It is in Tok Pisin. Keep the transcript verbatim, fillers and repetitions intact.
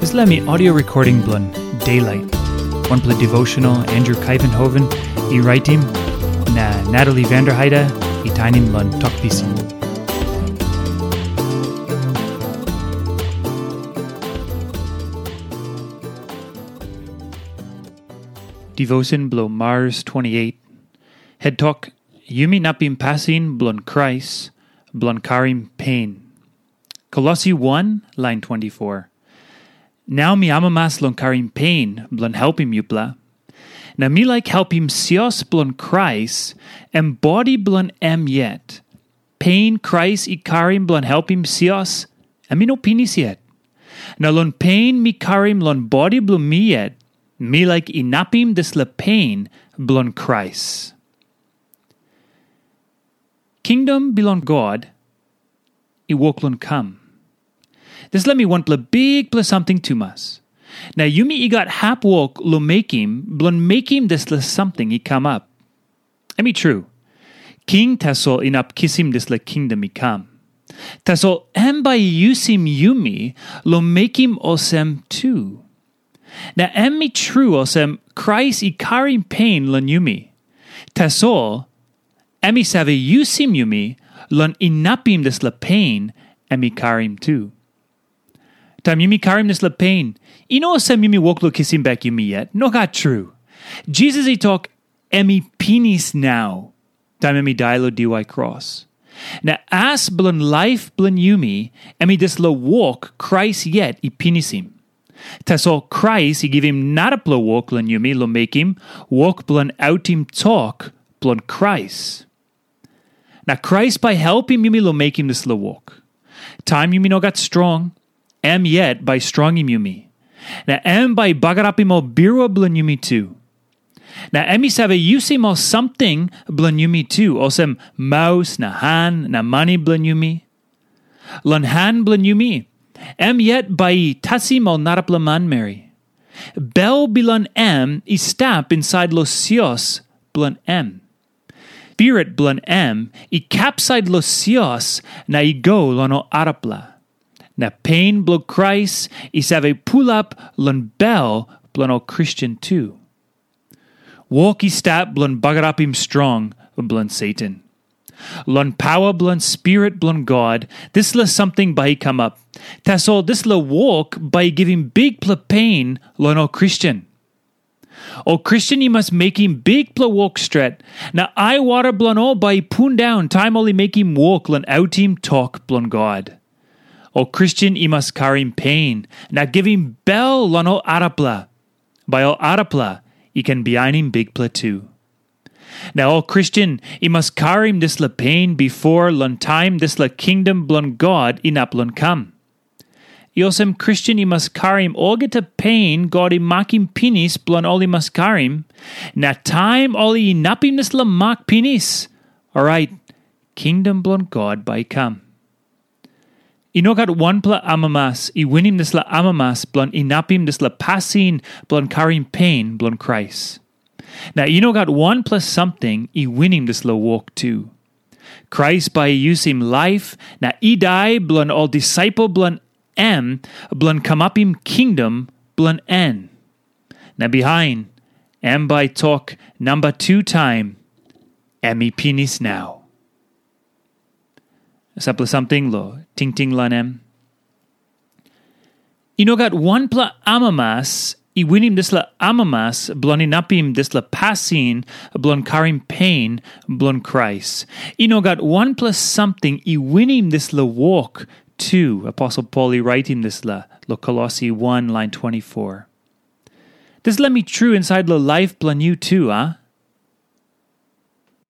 Dispela mi audio recording bilong Daylight. Wanpela devotional Andrew Kaivenhoven i raitim, na Natalie Vanderheide i tainim long Tok Pisin. Devotion bilong Mars twenty-eight. Het tok, yumi inapim pasin bilong Krais bilong karim pen. Kolosi one, lain twenty-four. Nau mi amamas long karim pen bilong helpim yupela. Na mi laik helpim sios bilong Krais, em bodi bilong em yet. Pen Krais i karim bilong helpim sios, em i no pinis yet. Na long pen mi karim long bodi bilong mi yet, mi laik inapim dispela pen bilong Krais. Kingdom bilong God i wok long kam. Dispela mi wanpela bikpela samting tumas. Na yumi i gat hap wok long mekim, bilong mekim dispela samting i kamap. Em i tru, king tasol inap kisim dispela kingdom i kam. Tasol em bai i yusim yumi long mekim olsem tu. Na em i tru olsem, Krais i karim pen long yumi. Tasol, em i save yusim yumi long inapim dispela pen em i karim tu. Taim yumi karim dispela pen, i no olsem yumi wok long kisim bek yumi yet. Nogat tru. Jisas i tok, em i pinis nau, taim em i dai long diwai kros. Na as bilong laip bilong yumi, em i dispela wok Krais yet i pinisim. Tasol Krais i givim narapela wok long yumi long mekim, wok bilong autim tok bilong Krais. Na Krais bai helpim yumi long mekim dispela wok. Taim yumi no gat strong, em yet bai strongim yumi. Na em bai i bagarapim ol birua bilong yumi tu. Na em i save yusim ol samting bilong yumi tu, olsem maus na han na mani bilong yumi. Long han bilong yumi, em yet bai i tasim ol narapela manmeri. Bel bilong em i stap insait long sios bilong em. Spirit bilong em i kapsait long sios na i go long ol arapela. Na pen bilong Krais i save pulap long bel bilong ol Kristen tu. Wok i stap bilong bagarapim strong bilong Satan. Long pawa bilong Spirit bilong God, dispela samting bai i kamap. Tasol dispela wok bai i givim bikpela pen long ol Kristen. Ol Kristen i mas mekim bikpela wok stret, na aiwara bilong ol bai i pundaun taim ol i mekim wok long autim tok bilong God. Ol Kristen i mas karim pen na givim bel long ol arapela. Bai ol arapela i ken bihainim Bikpela tu. Na ol Kristen i mas karim dispela pen bipo long taim dispela kingdom bilong God inap long kam. I olsem Kristen i mas karim olgeta pen God i makim pinis bilong ol i mas karim, na taim ol i inapim dispela mak pinis, orait kingdom bilong God bai i kam. I no gat wanpela amamas i winim dispela amamas bilong inapim dispela pasin bilong karim pen bilong Krais. Na i no gat wanpela samting i winim dispela wok tu. Krais bai i yusim laip na i dai bilong ol disaipel bilong em bilong kamapim kingdom bilong en. Na bihain, em bai tok namba tu taim, em i pinis nau. Sampela samting long tingting long em. I no gat wanpela amamas i winim dispela amamas bilong inapim dispela pasin bilong karim pen bilong Krais. I no gat wanpela samting i winim dispela wok tu, Aposel Pol i raitim dispela long Kolosi one lain twenty-four. Dispela mi tru insait long laip bilong yu tu, a?